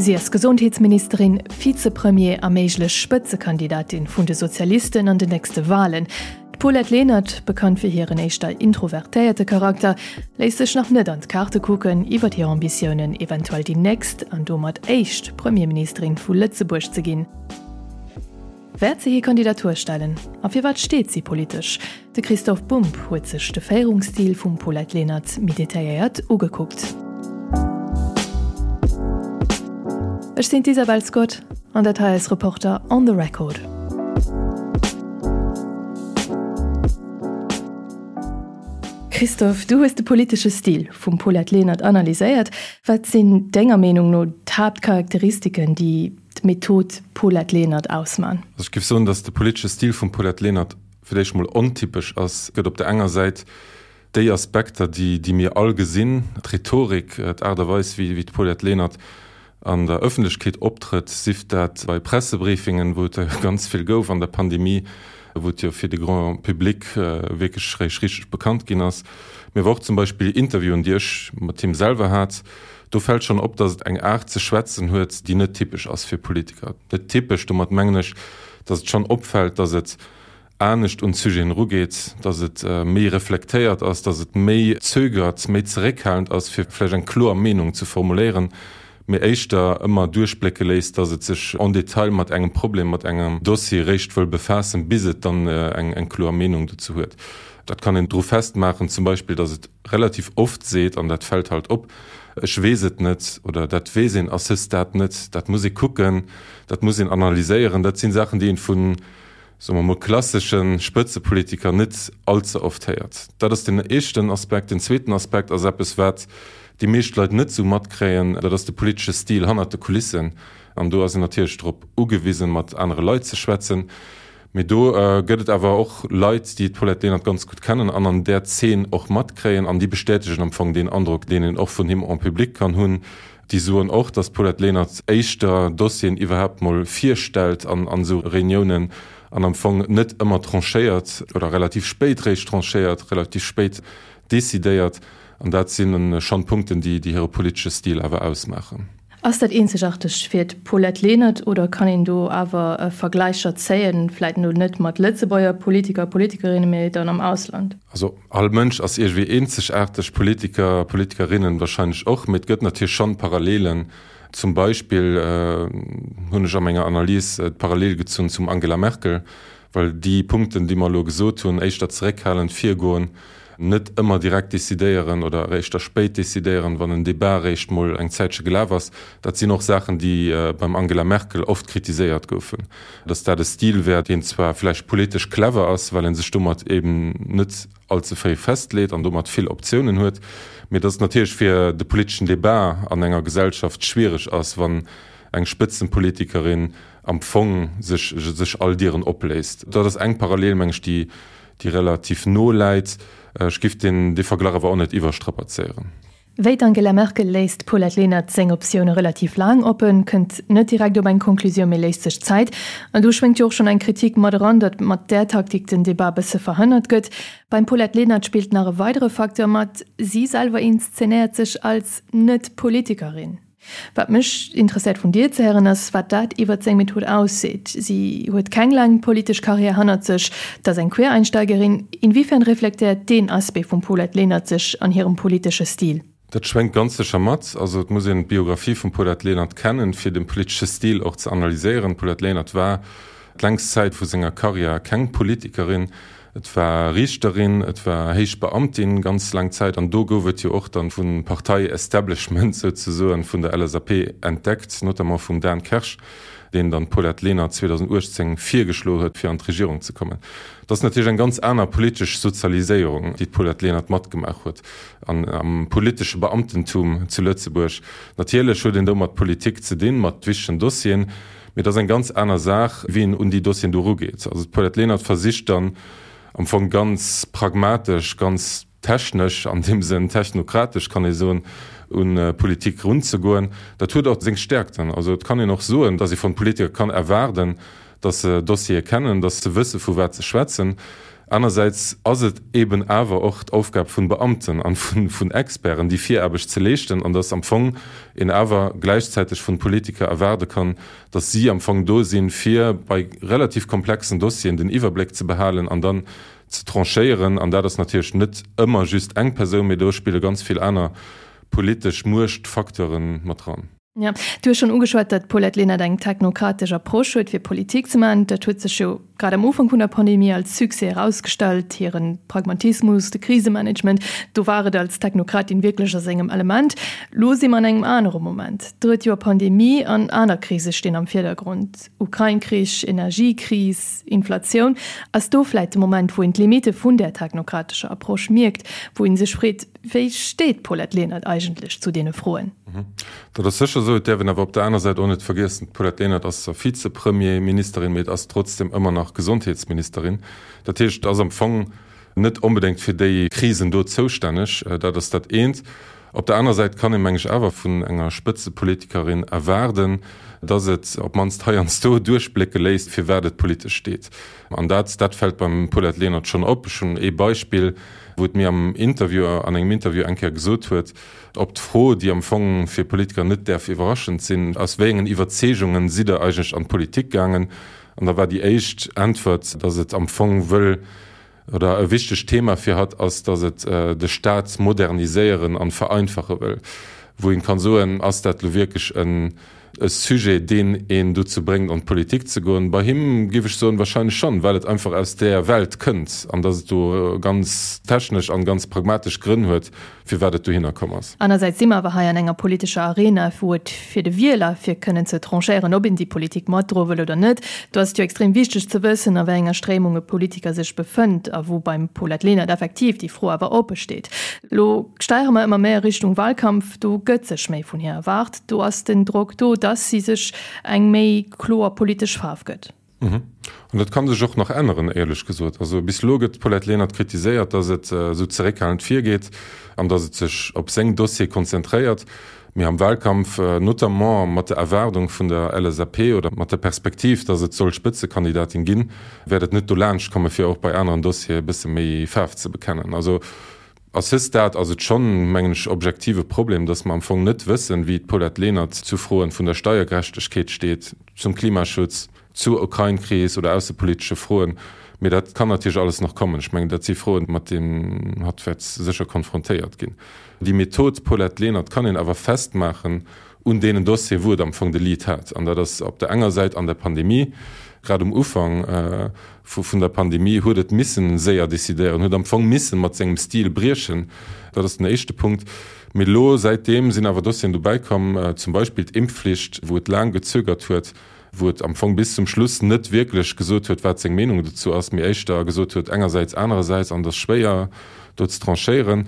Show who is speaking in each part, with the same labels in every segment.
Speaker 1: Si ass Gesondheetsministerin, Vizepremier a méiglech Spëtzekandidatin vun de Sozialisten an den nächste Walen. D'Paulette Lenert, bekannt fir hiren éischter introvertéierte Charakter, léisst sech nach net an d'Kaarte kucken iwwer hir Ambitiounen, eventuell déi nächst an domat éischt Premierministerin vu Lëtzebuerg ze ginn. Wäert se hir Kandidatur stellen? A firwat steet si politesch? De Christoph Bumb huet sech de Féierungsstil vum Paulette Lenert méi detailléiert ugekuckt. Ech sinn d'Isabel Scott an dat hei ass Reporter on the Record. Christoph, du hues de politesche Stil vum Paulette Lenert analyséiert. Wat sinn denger Meenung no d'Haaptcharakteristiken, déi d'Method Paulette Lenert ausman?
Speaker 2: Also ech géif soen, datt de politesche Stil vum Paulette Lenert fir d'éischt mol ontypesch ass. Et gëtt op der enger Säit déi Aspekter, déi déi mir all gesinn, d'Rhetorik, d'Aart a Weis wéi wéi d'Paulette Lenert an der Ëffentlechkeet optrëtt, sief dat bei Pressebriefingen, wou et der jo ganz vill gouf an der Pandemie, wou et jo fir de Grand public wierklech réischt richteg bekannt ginn ass, mee awer och zum Beispill Interviewen, déi ech mat him selwer hat. Do fält schonn op, datt et eng Aart ze schwätzen huet, déi net typesch ass fir Politiker. Net typesch, domat mengen ech, datt et schonn opfält, datt et anescht un d'Sujeten erugeet, datt et méi reflektéiert ass, datt et méi zögert, méi zeréckhalend ass, fir vläicht eng kloer Meenung ze formuléieren, mee éischter ëmmer duerchblécke léisst, datt et sech en détail mat engem Problem, mat engem Dossier réischt wëll befaassen, bis et dann eng kloer Meenung dozou huet. Dat kann een dru festmaachen, zum Beispill, datt et relativ oft seet, an dat fält halt op, ech weess et net oder dat weess een à ce stade net, dat muss ee kucken, dat muss een analyséieren. Dat si Saachen, déi een vu, soe mer mol, klassesche Spëtzepolitiker net allze oft héiert. Dat ass den éischten Aspekt. Den zweeten Aspekt ass eppes, wat déi meescht Leit net esou matkréien, dat ass de politesche Stil hannert de Kulissen. An do ass een natierlech drop ugewisen, mat anere Leit ze schwätzen. Mee do gëtt et awer och Leit, déi d'Paulette Lenert ganz gutt kennen an an där Zeen och matkréien an déi bestätegen am Fong deen Androck, deen een och vun him en public kann hunn. Déi soen och, datt d'Paulette Lenert éischter Dossieren iwwerhaapt mol virstellt an an esou Reuniounen an am Fong net ëmmer tranchéiert oder relativ spéit réischt tranchéiert, relativ spéit decidéiert. An dat si schonn Punkten, déi hire politesche Stil awer ausmaachen.
Speaker 1: Ass dat eenzegaarteg fir d'Paulette Lenert oder kann een do awer Vergläicher zéien, vläit elo net mat Lëtzebuerger Politiker a Politikerinnen, mee dann am Ausland?
Speaker 2: Also all Mënsch ass iergendwéi eenzegaarteg, Politiker, Politikerinnen wahrscheinlech och, mee et gëtt natierlech schonn Parallelen. Zum Beispill hunn ech a menger Analys d'Parallel gezunn zum Angela Merkel, well déi Punkten, déi mer elo gesot hunn, éischter zeréckhalend virgoen, net ëmmer direkt decidéieren oder eréischt da spéit decidéieren, wann en Debat eréischt mol eng Zäitche gelaf ass, dat sinn och Saachen, déi beim Angela Merkel oft kritiséiert goufen, datt dat e Stil wär, deen zwar vläicht politesch clever ass, well e sech domat eben net allze fréi festleet an domat vill Optiounen huet, mee datt et natierlech fir de politeschen Debat an enger Gesellschaft schwiereg ass, wann eng Spëtzenpolitikerin am Fong sech sech all Dieren opléisst. Dat ass eng Parallel, meng ech, déi déi relativ no läit. Ech giff deen dee Verglach awer och net iwwerstrapazéieren.
Speaker 1: Wéi d'Angela Merkel léisst d'Paulette Lenert seng Optioune relativ laang oppen, kënnt net direkt op eng Conclusioun, mee léisst sech Zäit. An do schwéngt jo och schonn eng Kritik mat eran, datt mat där Taktik den Debat bësse verhënnert gëtt. Beim Paulette Lenert spillt nach e weidere Facteur mat, Si selwer inszenéiert sech als Net-Politikerin. Wat mech interesséiert vun dir ze héieren ass, wat dat iwwert seng Method ausseet. Si huet keng laang politesch Karriär hannert sech, et ass eng Quereinsteigerin. Inwiefern reflektéiert deen Aspect vum Paulette Lenert sech an hirem politesche Stil?
Speaker 2: Dat schwéngt ganz sécher mat. Also et muss een d'Biographie vum Paulette Lenert kennen, fir de politesche Stil och ze analyséieren. D'Paulette Lenert war d'längst Zäit vu senger Karriär keng Politikerin. Et war Riichterin, et war héich Beamtin ganz laang Zäit an do gouf et jo och dann vum Partei-Establishment souzesoen, vun der LSAP entdeckt, notamment vum Dan Kersch, deen dann d'Paulette Lenert 2018 virgeschloe huet, fir an d'Regierung ze kommen. Dat ass natierlech eng ganz aner politesch Sozialiséierung, déi d'Paulette Lenert matgemaach huet an am politesche Beamtentum zu Lëtzebuerg. Natierlech huet een do mat Politik ze dinn, mat wichtegen Dossieren, Mee et ass eng ganz aner Saach, wéi een un déi Dossieren do erugeet. Also d'Paulette Lenert versicht dann am Fong ganz pragmatesch, ganz technesch, an deem Sënn technokratesch kann ee soen, un d'Politik erunzegoen. Dat huet och seng Stärkten. Also et kann een och soen, datt ee vun Politiker kann erwaarden, datt se Dossiere kennen, datt se wësse vu wat se schwätzen. Anersäits ass et eben awer och d'Aufgab vun Beamten an vun Experten, déi Viraarbecht ze leeschten, an dass am Fong een awer gläichzäiteg vun Politiker erwaarde kann, dass si am Fong do sinn, fir bei relativ komplexen Dossieren den Iwwerbléck ze behalen an dann ze tranchéieren. An dat ass natierlech net ëmmer just eng Persoun, mee do spille ganz vill aner politesch Muechtfacteure mat dran.
Speaker 1: Jo, du hues schonn ugeschwat, datt d'Paulette Lenert eng technokratesch Approche huet, fir Politik ze maachen. Dat huet sech jo grad am Ufank vun der Pandemie als Succès erausgestallt, hire Pragmatismus, de Krisemanagement, do war et als Technokratin wierklech a sengem Element. Lo si mer an engem anere Moment. Drëtt Joer Pandemie an aner Krise stinn am Virdergrond, Ukrain-Krich, Energiekris, Inflatioun. Ass do vläit de Moment, wou een d'Limitte vun där technokratescher Approche mierkt, wou ee sech freet, Wéi steet d'Paulette Lenert eigentlech zu deene Froen?
Speaker 2: Dat ass sécher esou. Et däerf een awer op der aner Säit och net vergiessen, d'Paulette Lenert ass zwar Vizepremierministerin, mee et ass trotzdeem ëmmer nach Gesondheetsministerin. Dat heescht, ass am Fong net onbedéngt fir déi Krisen do zoustänneg. Dat ass dat eent. Op der aner Säit kann ee meng ech awer vun enger Spëtzepolitikerin erwaarden, datt et op d'mannst heiansdo duerchblécke léisst, firwat et politesch steet. An dat, dat fält beim Paulette Lenert schonn op. Ech hunn ee Beispill, wou et mir am Interview, an engem Interview eng Kéier gesot huet, op d'Fro, déi am Fong fir Politiker net däerf iwwerraschend sinn, Aus wéi engen Iwwerzeegungen sidd Der eigentlech an d'Politik gaangen? An da war déi éischt Äntwert, datt et am Fong wëll, oder e wichtegt Thema fir hatt ass, datt et de Staat moderniséieren an vereinfache wëll. Wou een kann soen, ass dat elo wierklech en e Sujet, deen een dozou bréngt an d'Politik ze goen? Bei him géif ech soen, wahrscheinlech schonn, well et einfach aus där Welt kënnt an datt et do ganz technesch an ganz pragmatesch Grënn huet, firwat et dohinner komm ass.
Speaker 1: Anersäits si mer awer hei an enger politescher Arena, wou et fir de Wieler, fir kënnen ze tranchéieren, ob een déi Politik matdroe wëll oder net, do ass et jo extrem wichteg ze wëssen, a wéi enger Stréimung e Politiker sech befënnt a wou beim Paulette Lenert effektiv déi Fro awer oppe steet. Elo steiere mer ëmmer méi a Richtung Wahlkampf, do gëtt sech méi vun hir erwaart, do ass den Drock do, dass si sech eng méi kloer politesch Faarf gëtt.
Speaker 2: An dat ka sech och nach änneren, éierlech gesot. Also bis elo gëtt d'Paulette Lenert kritiséiert, datt et esou zeréckhalend virgeet an datt et sech op seng Dossiere konzentréiert. Mee am Wahlkampf, notamment mat der Erwaardung vun der LSAP oder mat der Perspektiv, datt et soll Spëtzekandidatin ginn, wäert et net dolaanscht komme fir och bei aneren Dossiere e bësse méi Faarf ze bekennen. Also À ce stade ass et schonn, mengen ech, objektiv e Problem, dass mer am Fong net wëssen, wéi d'Paulette Lenert zu Froen vun der Steiergerechtegkeet steet, zum Klimaschutz, zur Ukrain-Kris oder aussepolitesche Froen. Mee dat kann natierlech alles nach kommen. Ech mengen, dat si Froen, mat deenen hatt wäert sécher konfrontéiert ginn. Déi Method Paulette Lenert kann een awer festmaachen un deenen Dossieren, wou et am Fong de Lead hat. An dat ass op der enger Säit an der Pandemie, grad um Ufank vun der Pandemie huet et missen séier decidéieren, huet am Fong missen mat sengem Stil briechen. Dat ass den éischte Punkt. Mee elo säitdeem sinn awer Dossieren dobäi komm, zum Beispill d'Impfflicht, wou et laang gezögert huet, wou et am Fong bis zum Schluss net wierklech gesot huet, wat seng Meenung dozou ass, mee éischter gesot huet engersäits, anerersäits, an et ass schwéier do ze tranchéieren.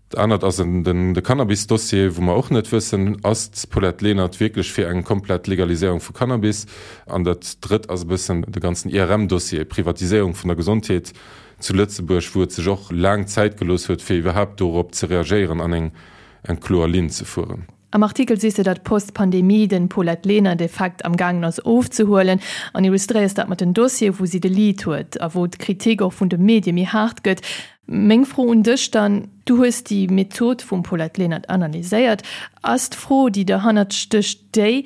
Speaker 2: Dat anert ass de Cannabis-Dossier, wou mer och net wëssen, Ass d'Paulette Lenert wierklech fir eng komplett Legaliséierung vu Cannabis? An dat Drëtt ass e bëssen de ganzen IRM-Dossier, Privatiséierung vun der Gesondheet zu Lëtzebuerg, wou et sech och laang Zäit gelooss huet, fir iwwerhaapt dorop ze reagéieren an eng kloer Linn ze fueren.
Speaker 1: Am Artikel sees de, datt post-Pandemie den Paulette Lenert Effekt am gaangen ass ofzehuelen an illustréiers dat mat den Dossiere wou si de Lead huet a wou d'Kritik och vun de Medie méi haart gëtt. Meng Fro un dech dann, du hues déi Method vum Paulette Lenert analyséiert, ass d'Fro déi derhannert stécht déi,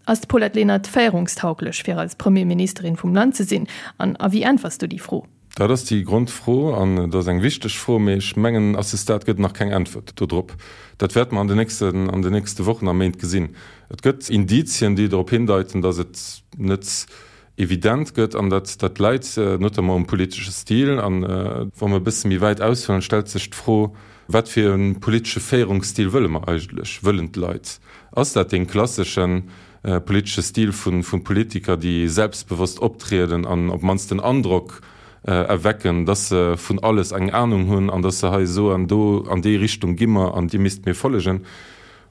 Speaker 1: Ass d'Paulette Lenert féierungstauglech fir als Premierministerin vum Land ze sinn? An a wéi äntwers du déi Fro?
Speaker 2: Dat ass déi Grondfro an et ass eng wichteg Fro, mee ech mengen, à ce stade gëtt et nach keng Äntwert dodrop. Dat wäerte mer an den nächsten, an den nächste Wochen a Méint gesinn. Et gëtt Indizien, déi drop hindeiten, datt et net evident gëtt an dat, dat läit notamment um politesche Stil. An wa mer e bësse méi wäit aushuelen, stellt sech d'Fro, Wat fir e politesche Féierungsstil wëlle mer eigentlech, wëllen d'Leit? Ass dat dee klassesche politesche Stil vu Politiker, déi selbstbewosst optrieden an op d'mannst den Androck erwecken, dass se vun alles eng Anung hunn an dass se hei soen, do an déi Richtung gi mer an Dir misst mir follegen?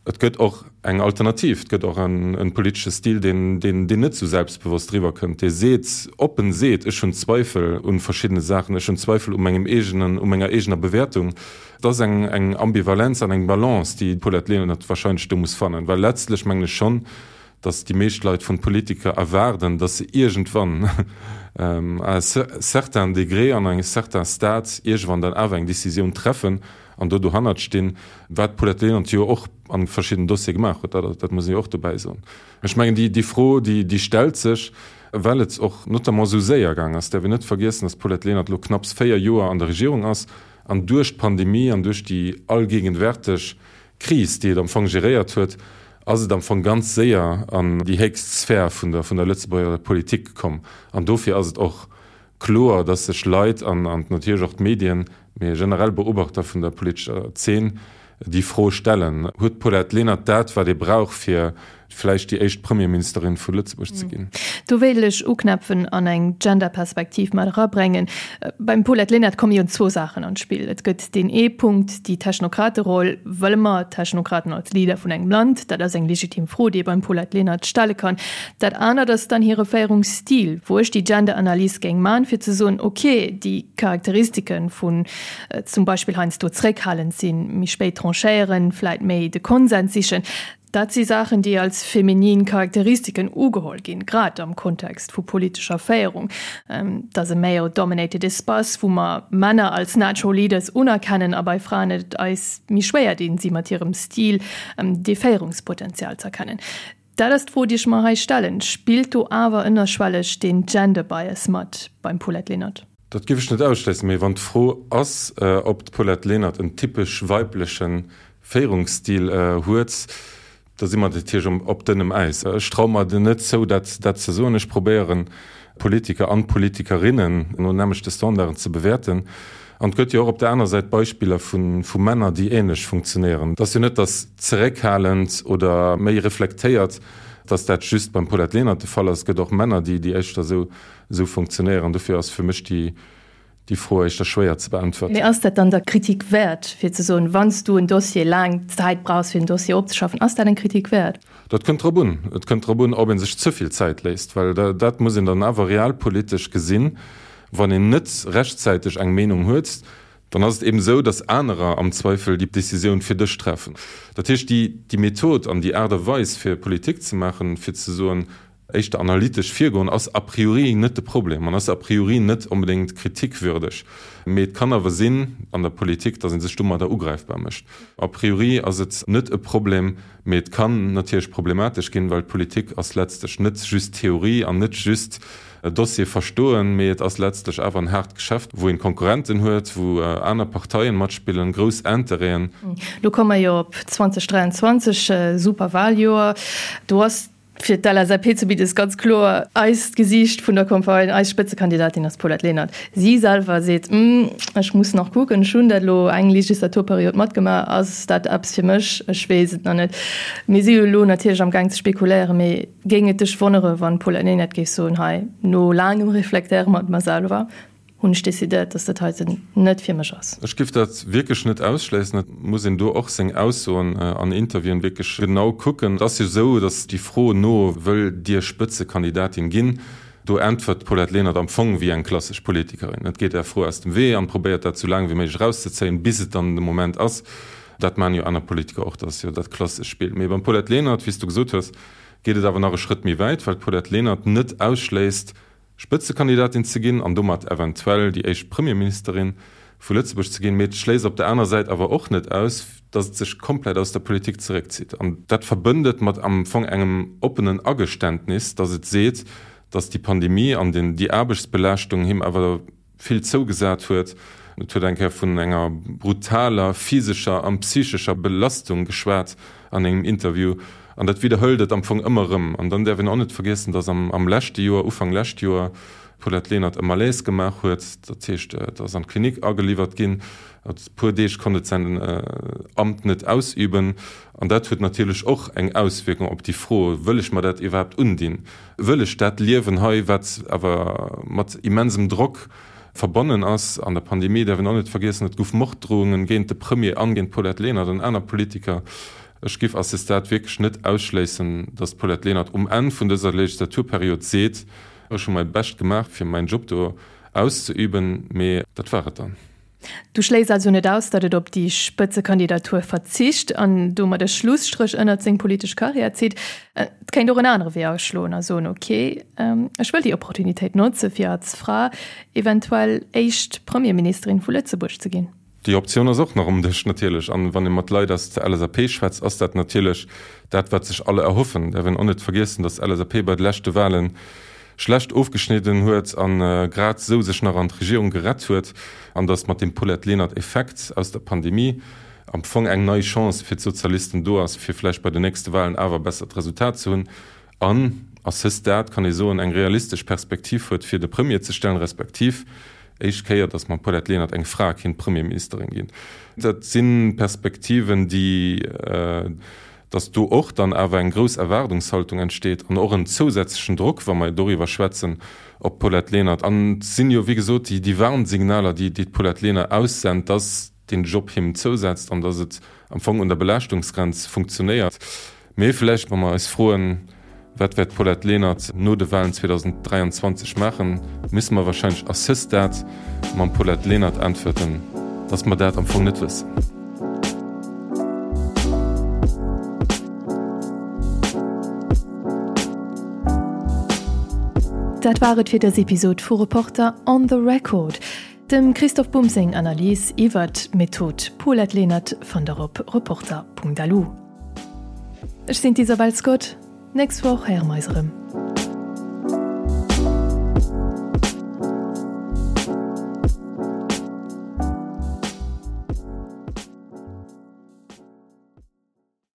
Speaker 2: Et gëtt och eng Alternativ, et gëtt och en politesche Stil, deen net esou selbstbewosst eriwwer kënnt, dee seet, oppen seet, ech hunn Zweifel u verschiddene Saachen, ech hunn Zweifel u mengem eegenen, u menger eegener Bewäertung. Et ass eng Ambivalenz an eng Balance, déi d'Paulette Lenert wahrscheinlech do muss fannen, well letztlech mengen ech schonn, datt déi meescht Leit vun Politiker erwaarden, datt se iergendwann à un certain degré an engem certain stade iergendwann dann awer eng Décisioun treffen an do dohannert stinn, wat d'Paulette Lenert jo och a verschiddenen Dossiere gemaach huet, dat muss een jo och dobäi soen. Ech mengen, déi Fro, déi stellt sech, well et och notamment esou séier gaang ass. Et däerf een net vergiessen, datt d'Paulette Lenert elo knapps 4 Joer an der Regierung ass an duerch d'Pandemie an duerch déi allgegenwärteg Kris, déi et am Fong geréiert huet, ass et am Fong ganz séier an déi héchst Sphär vun der vun der Lëtzebuerger Politik komm. An dofir ass et och kloer, datt sech Leit an natierlech och d'Medien, mee generell Beobachter vun der politescher Zeen déi Fro stellen, Huet d'Paulette Lenert dat, wat ee brauch, fir vläicht déi éischt Premierministerin vu Lëtzebuerg ze ginn?
Speaker 1: Do wéilt ech uknäpfen an eng Genderperspektiv mat erabrengen. Beim Paulette Lenert komme jo zwou Saachen an d'Spill. Et gëtt deen ee Punkt, déi Technokrateroll. Wëlle mer Technokraten als Leader vun engem Land? Dat ass eng legitim Fro, déi ee beim Paulette Lenert stelle kann. Dat anert ass dann hire Féierungsstil, wou ech déi Genderanalys géing man, fir ze soen, ok, déi Charakteristike vun zum Beispill heiansdo zréckhalend sinn, méi spéit tranchéieren, vläit méi de Konsens sichen, dat si Saachen, déi als feminin Charakteristiken ugeholl ginn, grad am Kontext vu politescher Féierung. Et ass e male-dominated Espace, wou mer Männer als natural leaders unerkennen a bei Fraen et eis méi schwéier dinn, si mat hirem Stil dee Féierungspotenzial z'erkennen. Dat ass d'Fro, déi ech mer hei stellen. Spillt do awer ënnerschwelleg deen Gender Bias mat beim Paulette Lenert?
Speaker 2: Dat géif ech net ausschléissen. Mee wann d'Fro ass, ob d'Paulette Lenert en typesch weibleche Féierungsstil huet, da si mer natierlech op dënnem Äis. Ech traue mer net zou, dat ze soen. Ech probéieren, Politiker an Politikerinnen no nämmlechte Standarden ze bewäerten. An et gëtt jo och op der aner Säit Beispiller vu Männer, déi ähnlech funktionéieren. Et ass jo net, datt zeréckhalend oder méi reflektéiert, datt dat just beim Paulette Lenert de Fall ass. Et gëtt och Männer, déi éischter esou funktionéieren. Dofir ass fir mech déi Fro éischter schwéier ze beäntwerten.
Speaker 1: Mee ass dat dann der Kritik wäert, fir ze soen, wann s du en Dossier laang Zäit brauchs, fir en Dossier opzeschaffen, ass dat eng Kritik wäert?
Speaker 2: Dat kënnt drop un. Et kënnt drop un, ob ee sech ze vill Zäit léisst, well dat muss een dann awer realpolitesch gesinn. Wann een net rechtzäiteg eng Meenung huet, dann ass et eben esou, datt anerer am Zweifel déi Décisioun fir dech treffen. Dat heescht, déi Method an déi Aart a Weis fir Politik ze maachen, fir ze soen, éischter analytesch virgoen, ass a priori net de Problem an ass a priori net onbedéngt kritikwürdeg. Mee et kann awer sinn an der Politik, datt ee sech domadder ugräifbar mécht. A priori ass et net e Problem, Mee et kann natierlech problematesch ginn, well d'Politik ass letztlech net just Theorie an net just Dossier verstoen, mee et ass letztlech awer en haart Geschäft, wou een Konkurrenten huet, wou aner Parteien matspillen, grouss Intérêten.
Speaker 1: Lo komme mer jo op 2023, super Wahljoer. Do ass fir d'LSAP zumindest ganz kloer eist Gesiicht vun der Campagne, eis Spëtzekandidatin ass d'Paulette Lenert. Si selwer seet, Ech muss nach kucken, ech hunn dat elo eng Legislaturperiod matgemaach, ass dat eppes fir mech? Ech weess et nach net. Mir si jo elo natierlech am Gaang ze spekuléieren, mee géing et dech wonnere wann d'Paulette Lenert géif soen, hei, no laangem Reflektéiere mat mer selwer, hunn ech decidéiert, dass dat heiten net fir mech ass.
Speaker 2: Ech géif dat wierklech net ausschléissen. Et muss een do och seng Aussoen an Interviewen wierklech genau kucken. Et ass jo esou, datt déi Fro no Wëllt Dir Spëtzekandidatin ginn? do äntwert d'Paulette Lenert am Fong wéi eng klassesch Politikerin. Et geet där Fro aus dem Wee an probéiert dat esou laang wéi méiglech erauszezéien, bis et dann de Moment ass. Dat maachen jo aner Politiker och, dat ass jo dat klassesch Spill. Mee beim Paulette Lenert, wéi s du gesot hues, geet et awer nach e Schrëtt méi wäit, well d'Paulette Lenert net ausschléisst, Spëtzekandidatin ze ginn an domat eventuell déi éischt Premierministerin vu Lëtzebuerg ze ginn, mee et schléisst op der aner Säit awer och net aus, datt et sech komplett aus der Politik zeréckzitt. An dat verbënnt et mat am Fong engem oppenen Ageständnis, datt et seet, datt déi Pandemie an déi Aarbechtsbelaaschtung him awer vill zougesat huet. Et huet eng Kéier vun enger brutaler physescher an psychescher Belastung geschwat an engem Interview. An dat widderhëlt et am Fong ëmmer erëm. An dann däerf een och net vergiessen, datt am leschte Joer, Ufank lescht Joer, d'Paulette Lenert e Malaise gemaach huet. Dat heescht, et ass an d'Klinik ageliwwert ginn. E puer Deeg konnt et säin Amt net ausüben. An dat huet natierlech och eng Auswierkung op déi Fro, Wëll ech mer dat iwwerhaapt undinn? Wëll ech dat Liewen hei, wat awer mat immensem Drock verbonnen ass? An der Pandemie däerf een och net vergiessen, et gouf Morddrohungen géint de Premier an géint d'Paulette Lenert an aner Politiker. Ech giff à ce stade wierklech net ausschléissen, datt d'Paulette Lenert um Enn vun dëser Legislaturperiod seet, Ech hu mäi Bescht gemaach, fir mäin Job do auszeüben, mee dat war et dann.
Speaker 1: Du schléiss also net aus, datt et op déi Spëtzekandidatur verzicht an domat e Schlusstréch ënnert seng politesch Karriär zitt. Et kéint och en anere Wee aschloen a soen, ok, ech wëll déi Opportunitéit notze fir als Fra eventuell éischt Premierministerin vu Lëtzebuerg ze ginn.
Speaker 2: Déi Optioun ass och nach um Dësch natierlech. An wann ee mat Leit aus der LSAP schwätzt, ass dat natierlech dat, wat sech alle erhoffen. Däerf een och net vergiessen, datt d'LSAP bei de leschte Wahlen schlecht ofgeschnidden huet a grad esou sech nach an d'Regierung gerett huet an datt mat dem Paulette Lenert-Effekt aus der Pandemie am Fong eng nei Chance fir d'Sozialisten do ass, fir vläicht bei den nächste Wahlen awer e bessert Resultat ze hunn an à ce stade kann ee soen, eng realistesch Perspektiv huet, fir de Premier ze stellen, respektiv éischt Kéier, datt mam Paulette Lenert eng Fra kinnt Premierministerin ginn. Dat si Perspektiven, déi, datt do och dann awer eng grouss Erwaardungshaltung entsteet an och en zousätzlechen Drock, wa mer doriwwer schwätzen, op d'Paulette Lenert. An et sinn jo, wéi gesot, déi Warnsignaler, déi d'Paulette Lenert aussent, datt deen Job him zousetzt an datt et am Fong un der Belaaschtungsgrenz funktionéiert. Mee vläicht, wa mer eis froen, Wat wäert d'Paulette Lenert no de Walen 2023 maachen, müsse mer wahrscheinlech à ce stade mam Paulette Lenert äntwerten, datt mer dat am Fong net wëssen.
Speaker 1: Dat war et fir dës Episod vu Reporter on the Record. Dem Christoph Bumb seng Analys iwwert d'Method Paulette Lenert fannt der op reporter.lu. Ech sinn d'Isabel Scott. Nächst Woch héiere mer eis erëm.